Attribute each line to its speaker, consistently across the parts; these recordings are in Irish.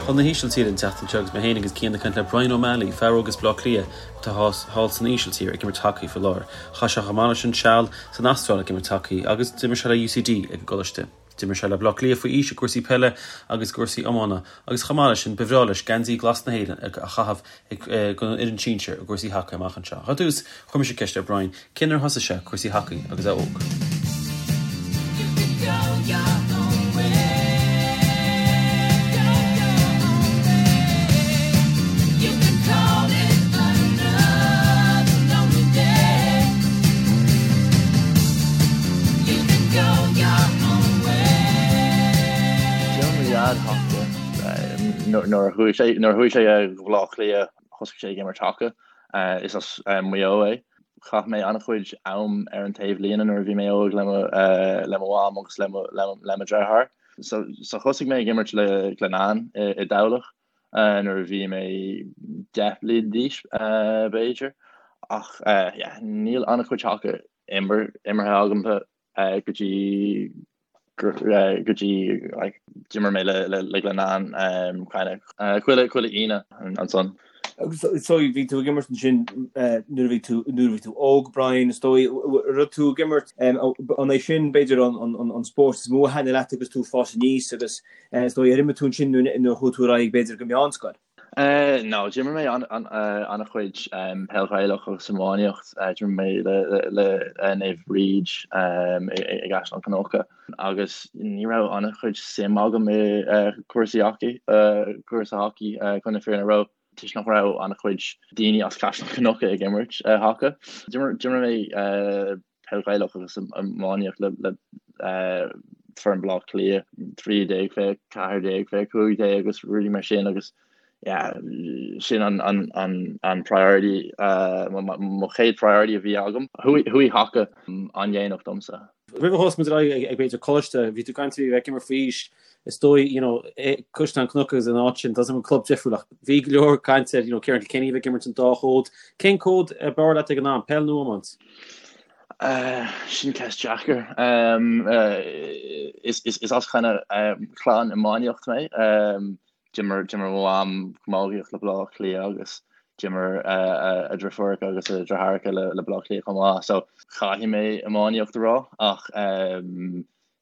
Speaker 1: chun na hÍsiltíre an tseachtain seo agus mé féin agus Cian ag caint le Brian O'Malley, fear óg as Baile Átha Cliath atá thall san Ísiltír ag imirt hacaí faoi láthair. Chaith sé chomh maith leis sin seal san Astráil ag imirt hacaí agus d'imir sé le UCD ag an gcoláiste. D'imir sé le Baile Átha Cliath faoi aois i gcúrsaí peile agus i gcúrsaí iomána agus chomh maith leis sin ba bhreá leis geansaí glas na hÉireann a chaitheamh ag an fhoireann sinsir i gcúrsaí hacaí amach anseo. Ar dtús, chuir mise ceist ar Brian cén uair a thosaigh sé cúrsaí hacaí agus é óg.
Speaker 2: D'imir mo dhaid haca nuair a chuaigh sé nuair a chuaigh sé go Baile Átha Cliath thosaigh sé ag imirt haca. Is as Maigh Eo é. Chaith mé an-chuid am ar an taobhlíne nuair a bhí mé óg le mo le mo mham agus le mo le mo dheartháir. So so thosaigh mé ag imirt le Glenanne i i dTamhlacht nuair a bhí mé 10 bliain d'aois b'fhéidir. Ach yeah níl an-chuid haca imeartha agamsa go dtí go dtí like d'imir mé le le Glenanne kind of chuile chuile Aoine ansan.
Speaker 3: Agus so bhí tú ag imirt ansin nuair a bhí tú nuair a bhí tú óg Brian is dóigh raibh tú ag imirt an é sin b'fhéidir an an an spórt is mó a thaitnigh leat agus tú ag fás aníos agus is dóigh ar imir tú ansin nuair a chuaigh tú ar aghaidh b'fhéidir go meánscoil?
Speaker 2: No, d'imir mé an-chuid peil Ghaelach agus iománaíocht. D'imir mé le Naomh Bríd i gCaisleán Cnucha agus ní raibh an-chuid suim agam i cúrsaí hacaí, cúrsa hacaí chun na fírinne a rá, toisc nach raibh an-chuid daoine as Caisleán Cnucha ag imirt haca. D'imir mé peil Ghaelach agus iománaíocht le foireann Bhaile Átha Cliath, 13 fé 14 fé 15 agus rudaí mar sin agus yeah, sin an, an, an, an priority, uh, mo chéad priority a bhí agam. Chuaigh haca an-dhéanach domsa.
Speaker 1: Roimh a thosaigh muid ar aghaidh ag b'fhéidir coláiste, bhí tú ag caint faoi bheith ag imirt faoi aois, is dóigh, you know, Caisleán Cnucha agus an áit sin, tá an club difriúil ach bhí go leor caint ar, you know, Ciarán Kilkenny a bheith ag imirt an dá chód. Cén cód ab fhearr leat ag an am, peil nó iomáint?
Speaker 2: Sin ceist deacair. Is as kind of clann iománaíocht mé. D'imir d'imir mo mham camógaíocht le Baile Átha Cliath agus d'imir a deirfiúracha agus a deartháireacha le Baile Átha Cliath chomh maith. So caithfidh mé iománaíocht a rá ach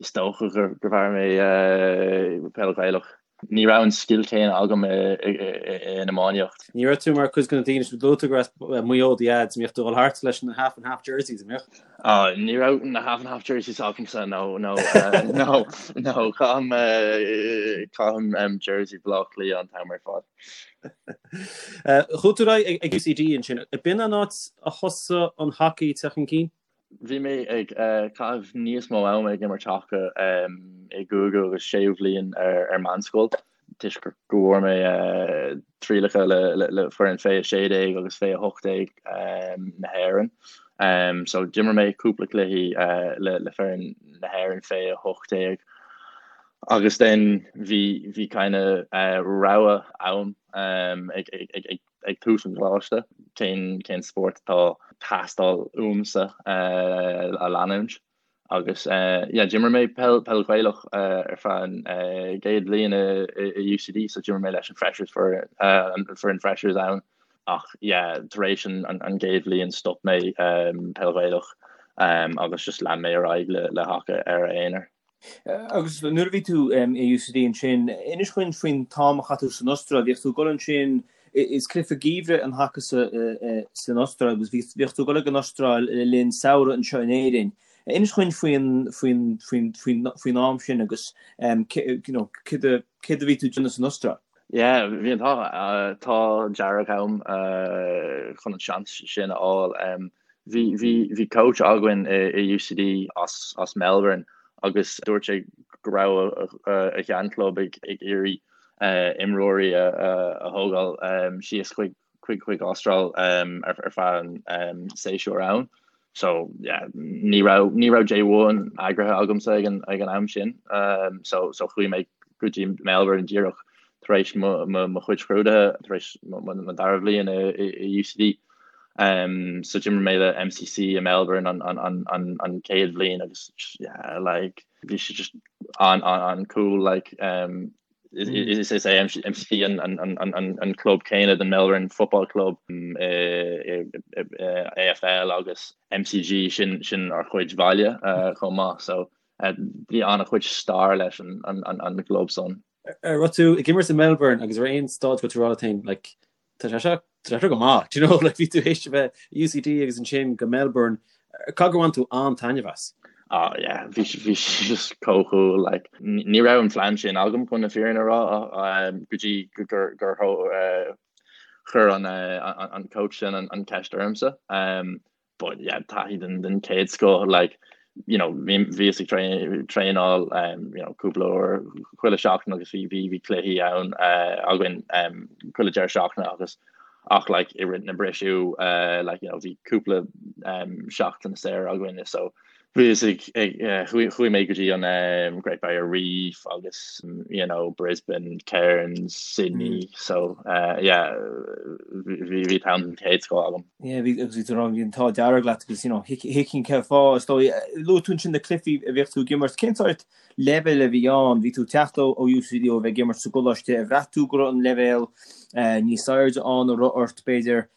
Speaker 2: is dócha gur bhfearr mé peil Ghaelach. Ní raibh an scil céanna agam in iománaíocht.
Speaker 1: Ní raibh tú mar chuid de na daoine sin luaigh tú gur as Maigh Eo do dhaid, an mbíodh tú ag dul thart leis na half and half jerseys, an
Speaker 2: mbíodh? Oh, ní raibh na half and half jerseys agamsa, no, no, no, no, caithim, caithim jersey Bhaile Átha Cliath an t-am ar fad.
Speaker 1: Chuaigh tú ar aghaidh ag UCD ansin. B'in an áit a thosaigh an hacaí ag teacht chun cinn?
Speaker 2: Bhí mé ag caitheamh níos mó ama ag imirt haca i gcúigiú agus séú bhliain ar meánscoil toisc go bhfuair mé trialacha le foireann fé 16 agus fé 18 na hÉireann. So d'imir mé cúpla cluichí le foireann na hÉireann fé 18 agus then bhí bhí kind of rogha ann ag ag ag tús an choláiste, cén cén spórt atá teastáil uaimse a leanúint. Agus yeah, d'imir mé peil peil Ghaelach ar feadh an gcéad bhliain i UCD, so d'imir mé leis an freshers an foireann freshers ann. Ach yeah, tar éis an an gcéad bhliain stop mé peil Ghaelach agus just lean mé ar aghaidh le le haca ar a aonar.
Speaker 3: Agus nuair a bhí tú i UCD ansin, inis dhúinn faoin t-am a chaith tú san Astráil. Bhíodh tú ag dul ansin, is cluiche geimhridh an haca san Astráil agus bhíodh tú ag dul ag an Astráil le linn samhradh anseo in Éirinn. Inis dhúinn faoin, faoin, faoin, faoin, faoin am sin agus you know, céard a, céard a bhí tú ag déanamh san Astráil?
Speaker 2: Yeah, bhí an t-ádh, t-ádh dearg agam chun an seans sin a fháil. Bhí, bhí, bhí coach againn i, i UCD as, as Melbourne agus dúirt sé go raibh a, a, a sheanchlub ag, ag iarraidh imreoirí a, a, a thógáil síos chuig, chuig, chuig Astráil ar, ar feadh an séasúr ann. So yeah, ní raibh, ní raibh J1 eagraithe agamsa ag an, ag an am sin. So, so chuaigh mé go dtí Melbourne díreach tar éis mo, mo, mo chuid scrúduithe, tar éis mo, mo, mo dara bhliain i, i, i UCD. Um, so d'imir mé le MCC i Melbourne an, an, an, an, an chéad bhliain agus yeah, like, bhí sé just an, an, an cool like, um, Is é MCC an club céanna den Melbourne Football Club i AFL agus MCG sin sin ár chuid bhaile chomh maith so bhí an-chuid stair leis an gclub san.
Speaker 1: An raibh tú ag imirt i Melbourne agus ar aon staid go raibh tú ag rá leat féin like tá sé seo tá sé seo go maith do you know like bhí tú théis a bheith i UCD agus ansin go Melbourne caithfidh gur bhain tú an-taitneamh as?
Speaker 2: Oh yeah, bhí bhí sé just chomh cool like ní raibh an phlean sin agam chun na fírinne a rá go dtí gur gur chuir an an coach sin an ceist ormsa. But yeah, taithí den den chéad scoth like you know bhí bhíos ag traenáil um, you know cúpla uair chuile seachtain agus bhí bhí bhí cluichí ann uh, againn um, chuile deireadh seachtaine agus ach like i rith na briseadh uh, like you know bhí cúpla um, seachtain saor againn so Bhíos ag, chuaigh mé go dtí an Great Barrier Reef agus you know Brisbane, Cairns, Sydney so yeah bhí bhí t-am den chéad scoth agam.
Speaker 3: Yeah bhí agus bhí tú ag rá bhí an t-ádh dearg leat agus you know thuigfinn cén fáth is dóigh. Luaigh tú ansin na cluichí a bhíodh tú ag imirt, cén sórt leibhéal a bhí ann? Bhí tú ag teacht ó UCD ó bheith ag imirt sa gcoláiste, ar bhraith tú go raibh an leibhéal níos airde ann, an raibh ort b'fhéidir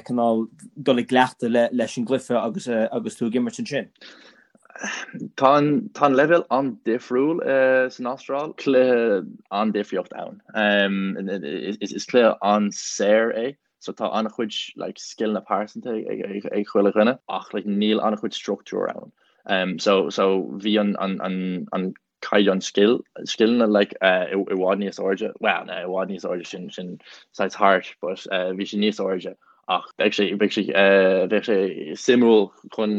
Speaker 3: cineál dul i gcleachtadh leis an gcluiche agus agus tú ag imirt ansin?
Speaker 2: Tá an tá an leibhéal an-difriúil san Astráil. Cluiche an-difríocht ann. Is cluiche an-saor é so tá an-chuid like scileanna pearsanta ag ag chuile dhuine ach like níl an-chuid struchtúr ann. So so bhí an an an an caighdeán scil, scileanna like i bhfad níos airde, well no i bhfad níos airde sin sin saghas harsh but bhí sé níos airde ach beidh sé beidh sé bheadh sé suimiúil chun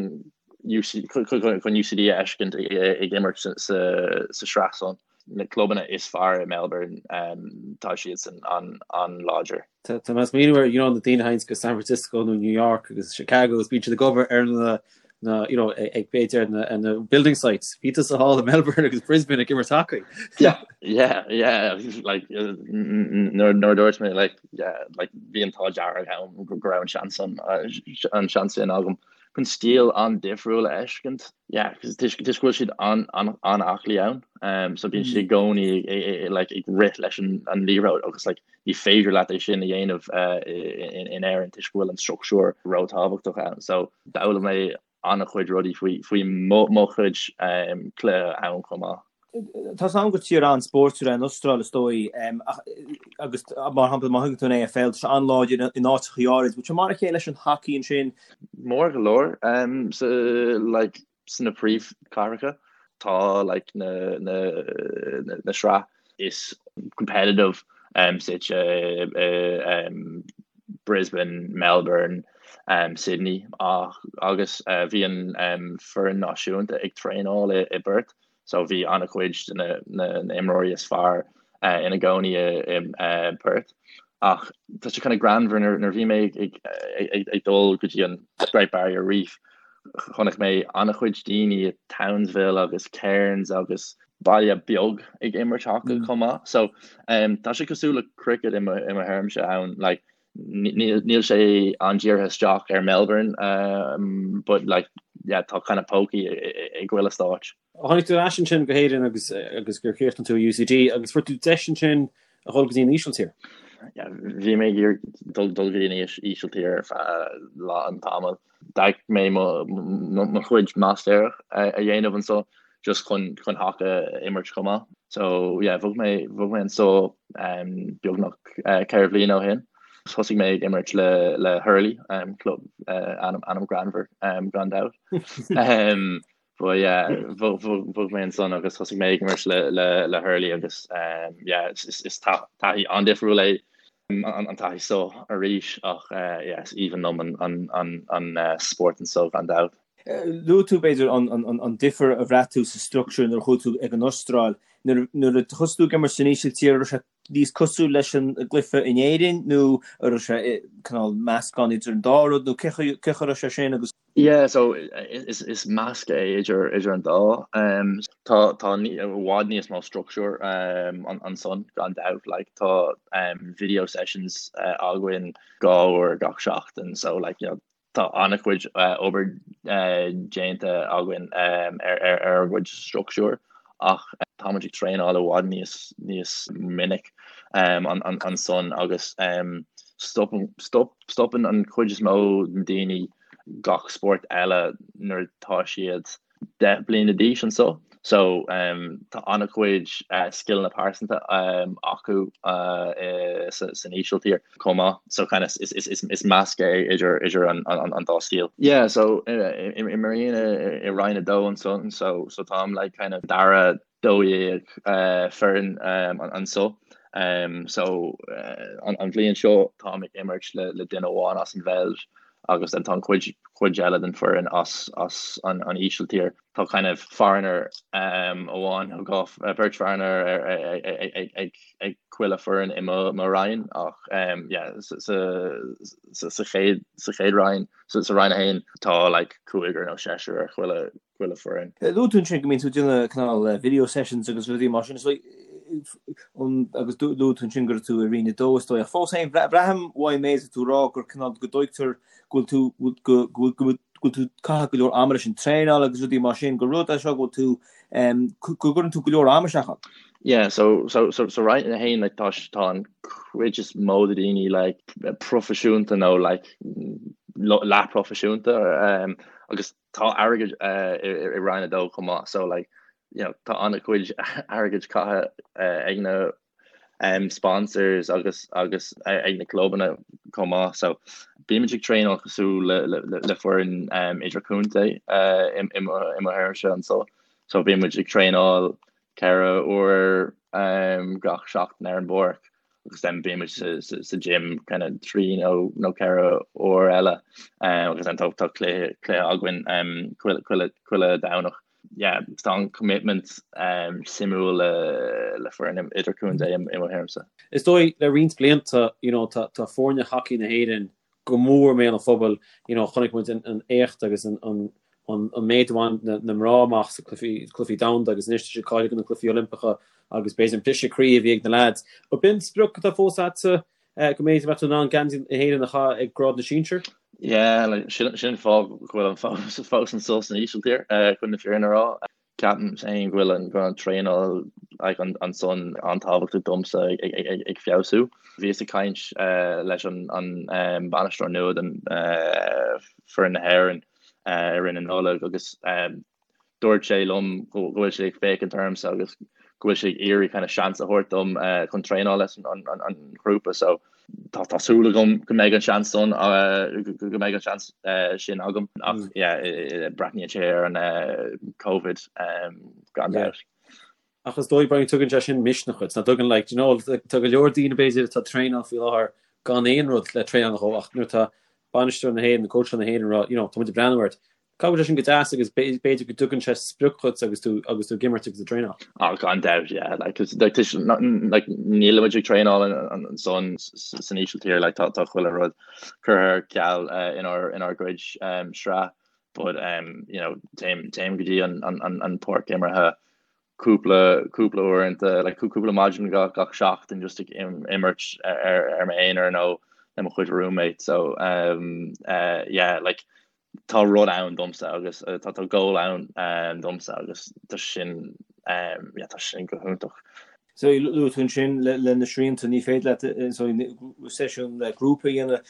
Speaker 2: UC chun UCD a fheiscint ag imirt sa sa sa sraith san. Na clubanna is fearr i Melbourne tá siadsan an an-láidir.
Speaker 1: Tá mé ag smaoineamh ar you know na daoine a théanns go San Francisco nó New York agus Chicago agus bíonn siad ag obair ar na na you know ag b'fhéidir na na building sites. Bhí tusa thall i Melbourne agus Brisbane ag imirt hacaí.
Speaker 2: Yeah, yeah, yeah, like nuair nuair a dúirt mé like yeah, like bhí an t-ádh dearg agam go raibh an seans an an seans sin agam chun stíl an-difriúil a fheiscint. Yeah, toisc go bhfuil siad an-aclaí ann, um, so bíonn siad i gcónaí like ag rith leis an an liathróid agus like ní féidir leat é sin a dhéanamh in Éirinn toisc go bhfuil an struchtúr róthábhachtach ann. So d'fhoghlaim mé an-chuid rudaí faoi faoi mo mo chuid cluiche ann chomh maith.
Speaker 3: Tá 's agam gur tír an-spóirtiúil é an Astráil is dóigh agus mar shampla má thugann tú an AFL tá sé an-láidir in áiteachaí áirid. Bhfuil sé mar a chéile leis an hacaí ansin?
Speaker 2: Mór go leor so like sna príomhchathracha tá like na na na sraith is competitive um, suite i um, Brisbane, Melbourne, um, Sydney ach agus uh, bhí an um, foireann náisiúnta ag traenáil i, i bPerth so bhí an-chuid de na, na, na imreoirí is fearr uh, ina gcónaí i, i uh, Perth. Ach tá sé kind of greannmhar nuair nuair bhí mé ag, ag, ag, ag dul go dtí an Great Barrier Reef Chonaic mé an-chuid daoine i Townsville agus Cairns agus baile beag ag imirt haca chomh maith. So tá sé cosúil le cricket i mo thuairimse ann. Like níl sé an-dírithe isteach ar Melbourne but like yeah tá kind of pócaí i gchuile stáit.
Speaker 1: Tháinig tú ar ais ansin go hÉirinn agus agus gur chríochnaigh tú i UCD agus fuair tú deis ansin a dhul go dtí an Ísiltír.
Speaker 2: Yeah, bhí mé ag iarraidh dul dul go dtí an Ísiltír ar feadh lán tamaill. D'fhág mé mo mo chuid máistéireacht a dhéanamh anseo just chun chun haca a imirt chomh maith. So yeah, bhog mé bhog mé anseo um, beagnach uh, 4 bhliain ó shin. Thosaigh mé ag imirt le le Hurley, um, club uh, ainm ainm greannmhar um, gan dabht. um, But yeah, bhog mé ansan agus thosaigh mé ag imirt le le Hurley agus yeah, is taithí an-difriúil é an taithí seo arís ach yeah, is aoibhinn liom an spórt anso gan dabht.
Speaker 3: Luaigh tú, b'fhéidir, an difear a bhraith tú sa structúr nuair a chuaigh tú ag an Astráil. Nuair a thosaigh tú ag imirt san Ísiltír, an raibh sé níos cosúil leis an gcluiche in Éirinn nó an raibh sé cineál meascán idir an dá rud nó cén chaoi a raibh sé sin agus.
Speaker 2: Yeah so is is measc é idir idir an dá. Um, tá tá i bhfad níos mó structúr um, ansan gan dabht like tá um, video sessions uh, againn dhá uair gach seachtain so like you know, tá an-chuid obair déanta againn ar ár gcuid struchtúr. ach tá muid ag traenáil i bhfad níos níos minic ansan agus stopann stop stopann an chuid is mó den daoine gach spórt eile nuair atá siad 10 bliana d'aois anso. So tá an-chuid scileanna pearsanta acu san Ísiltír chomh maith. So kind of is measc é idir idir an dá stíl. Yeah, so imrím i Roinn 2 ansan so so táim like kind of dara 12 foireann anso. So an bhliain seo táim ag imirt le duine amháin as an Bheilg agus then tá an chuid chuid eile den foireann as as an an Ísiltír. Tá kind of foreigner amháin nó dhá beirt foreigner ag ag ag chuile foireann i mo mo roinn ach yeah sa sa sa chéad sa chéad roinn sa sa roinn 1 tá like cúigear nó seisear ar chuile chuile
Speaker 3: foireann. Luaigh tú ansin go mbíonn tú ag déanamh cineál video sessions agus rudaí mar sin, so agus luaigh tú ansin go raibh tú i Roinn 2 is dóigh, ach fós féin braithim uaidh an méid atá tú ag rá gur cineál go dtuigtear go bhfuil tú go go go bhfuil tú ag caitheamh go leor ama leis an traenáil agus rudaí mar sin, gur rud é seo go bhfuil tú go gcuireann tú go leor ama isteach ann.
Speaker 2: Yeah, so so so so Roinn 1 like tá tá an chuid is mó de daoine like proifisiúnta nó like leathphroifisiúnta um, agus tá airgead i Roinn 2 chomh maith so like you know tá an-chuid airgid caithe ag na um, sponsors agus agus ag na clubanna chomh maith so bímid ag traenáil cosúil le, le, le, le foireann um, idirchontae uh, i, i, i mo fhoireannse anso so bímid ag traenáil 4 uair um, gach seachtain ar an bpáirc agus then bímid sa, sa, sa gym kind of 3 nó, nó 4 uair eile um, agus then tá, tá cluiche, cluiche againn um, chuile, chuile, chuile Domhnach. Yeah, tá an commitment um, suimiúil le, le foireann idirchontae i, i mo thuairimse.
Speaker 1: Is dóigh le roinnt blianta, you know, tá, tá foirne hacaí na hÉireann go mór i mbéal an phobail. You know, chonaic muid an éacht agus an méid a bhain na mná amach sa cluichí domhanda agus anois tá siad cáilithe do na cluichí Oilimpeacha agus b'fhéidir an briseadh croí a bhí ag na leaids. Ab in sprioc atá fós agatsa go mb'fhéidir mbeadh tú in ann geansaí na hÉireann a chaitheamh ag grád na sinsear?
Speaker 2: Yeah, like, sin sin an fáth go bhfuilim fós fós anso san Ísiltír, chun na fírinne a rá. Ceapaim féin go bhfuil an go bhfuil an traenáil like an ansan an-tábhachtach domsa ag ag ag ag feabhsú. Bhíos ag caint leis an an bainisteoir nua den foireann na hÉireann i rith na Nollag agus dúirt sé liom go bhfuil sé ag féachaint ormsa agus go bhfuil sé ag iarraidh kind of seans a thabhairt dom chun traenáil leis an an an ghrúpa so tá tá súil agam go mbeidh an seans san go mbeidh an seans sin agam ach yeah breathnaíonn sé ar an Covid gan dabht.
Speaker 1: Ach is dóigh Brian tugann sé sin misneach duit, nach dtugann like, you know, tá go leor daoine b'fhéidir atá ag traenáil faoi láthair gan aon rud le traenáil dhó ach nuair atá bainisteoir na hÉireann, cóitseáil na hÉireann ag rá, you know, tá muid ag breathnú ort, Caithfidh sé sin go deas agus b'fhéidir go dtugann sé sprioc dhuit agus tú agus tú ag imirt agus ag traenáil.
Speaker 2: Ah, gan dabht, yeah. Like, cause, like, tis, not, like, nílimid ag traenáil ansan san Ísiltír, like, tá, tá chuile rud curtha ar ceal uh, inár, inár gcuid um, sraith, but, um, you know, téim, téim go dtí an, an, an, an páirc imeartha cúpla, cúpla uaireanta, like, cúpla maidin gach, gach seachtain just ag imirt ar, ar m'aonar nó le mo chuid roommate, so, um, uh, yeah, like, tá rud ann domsa agus tá tá goal ann domsa agus tá sin yeah tá sin go hiontach.
Speaker 3: So luaigh tú ansin le le na srianta ní féidir leat so seisiún le grúpa a dhéanamh.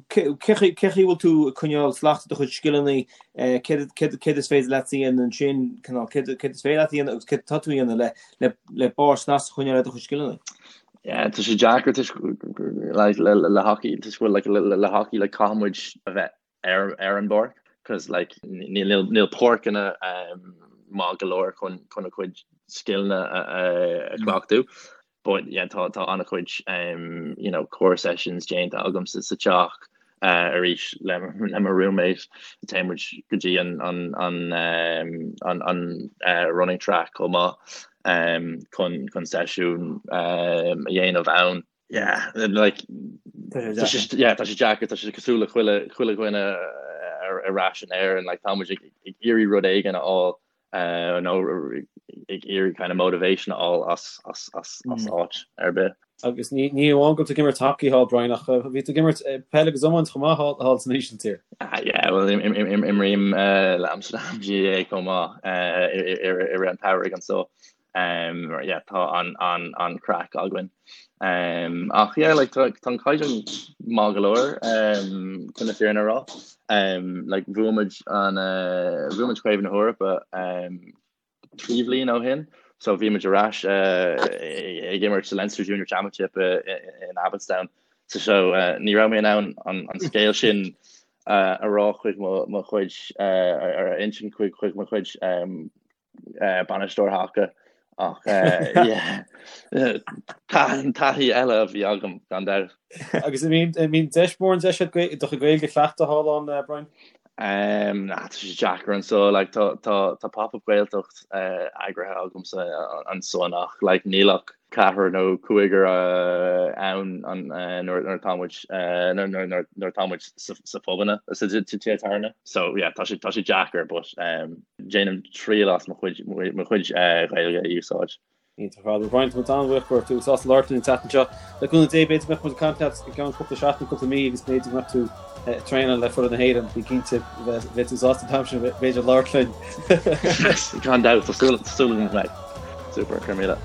Speaker 3: Cé chaoi a bhfuil tú ag coinneáil slacht do chuid scileanna céard céard is féidir leat a dhéanamh ansin cineál céard céard is féidir leat a dhéanamh agus céard atá tú a dhéanamh le le le barr snas a choinneáil ar do chuid scileanna?
Speaker 2: Yeah, tá sé deacair toisc like, le, le, le hockey toisc go bhfuil like, le, le, le hockey like, caithfidh muid a bheith ar, ar an bpáirc cos like, níl, níl, níl páirceanna um, maith go leor chun, chun a chuid scileanna a, a, a chleachtadh. But yeah, tá, tá an-chuid um, you know, core sessions déanta agam sa, sa teach uh, arís le, le mo roommate. Téann muid go dtí an, an, an, um, an, an uh, running track chomh maith um, chun, chun seisiún um, a dhéanamh ann. Yeah, like, tá sé, yeah, tá sé deacair, tá sé cosúil le chuile, chuile dhuine ar, ar ais in Éirinn, like, tá muid ag, ag iarraidh rud éigin a fháil. Nó ag iarraidh kind of motivation a fháil as as as as áit ar bith.
Speaker 1: Agus ní ní amháin go bhfuil tú ag imirt hacaí thall Brian ach bhí tú ag imirt peil agus iomáint chomh maith thall thall san Ísiltír.
Speaker 2: Yeah, well imrím le Amsterdam GAA chomh maith i rith an tsamhraidh anso. Yeah, tá an an an craic againn. Ach yeah, like tá tá an caighdeán maith go leor chun na fírinne a rá. Like bhuaigh muid an bhuaigh muid Craobh na hEorpa 3 bhliain ó shin, so bhí muid ar ais ag imirt sa Leinster Junior Championship in Abbotstown. So so ní raibh mé in ann an an scéal sin a rá chuig mo mo chuid ar a insint chuig chuig mo chuid bainisteoir haca ach taithí eile a bhí agam gan dabht.
Speaker 1: Agus an mbíonn deis mórán deis agat do chuid Gaeilge a chleachtadh thall ann, Brian?
Speaker 2: Nah, tá sé deacair anso, like tá tá tá pop-up Gaeltacht eagraithe agamsa ansan ach like níl ach ceathrar nó cúigear ann nuair atá muid nuair atá muid sa phubanna sa tithe tábhairne. So yeah, tá sé tá sé deacair but déanaim triail as mo chuid mo chuid Ghaeilge a úsáid.
Speaker 1: Iontach ar fad. Brian, tá muid an-bhuíoch go raibh tú sásta labhairt linn an tseachtain seo. Le cúnamh Dé, b'fhéidir go mbeadh muid ag caint leat i gceann cúpla seachtain, cúpla mí agus b'fhéidir go mbeadh tú ag traenáil le foireann na hÉireann. Bí cinnte, beidh tú sásta an t-am sin b'fhéidir labhairt linn.
Speaker 2: Gan dabht, tá súil agam go mbeidh. Super, go raibh míle.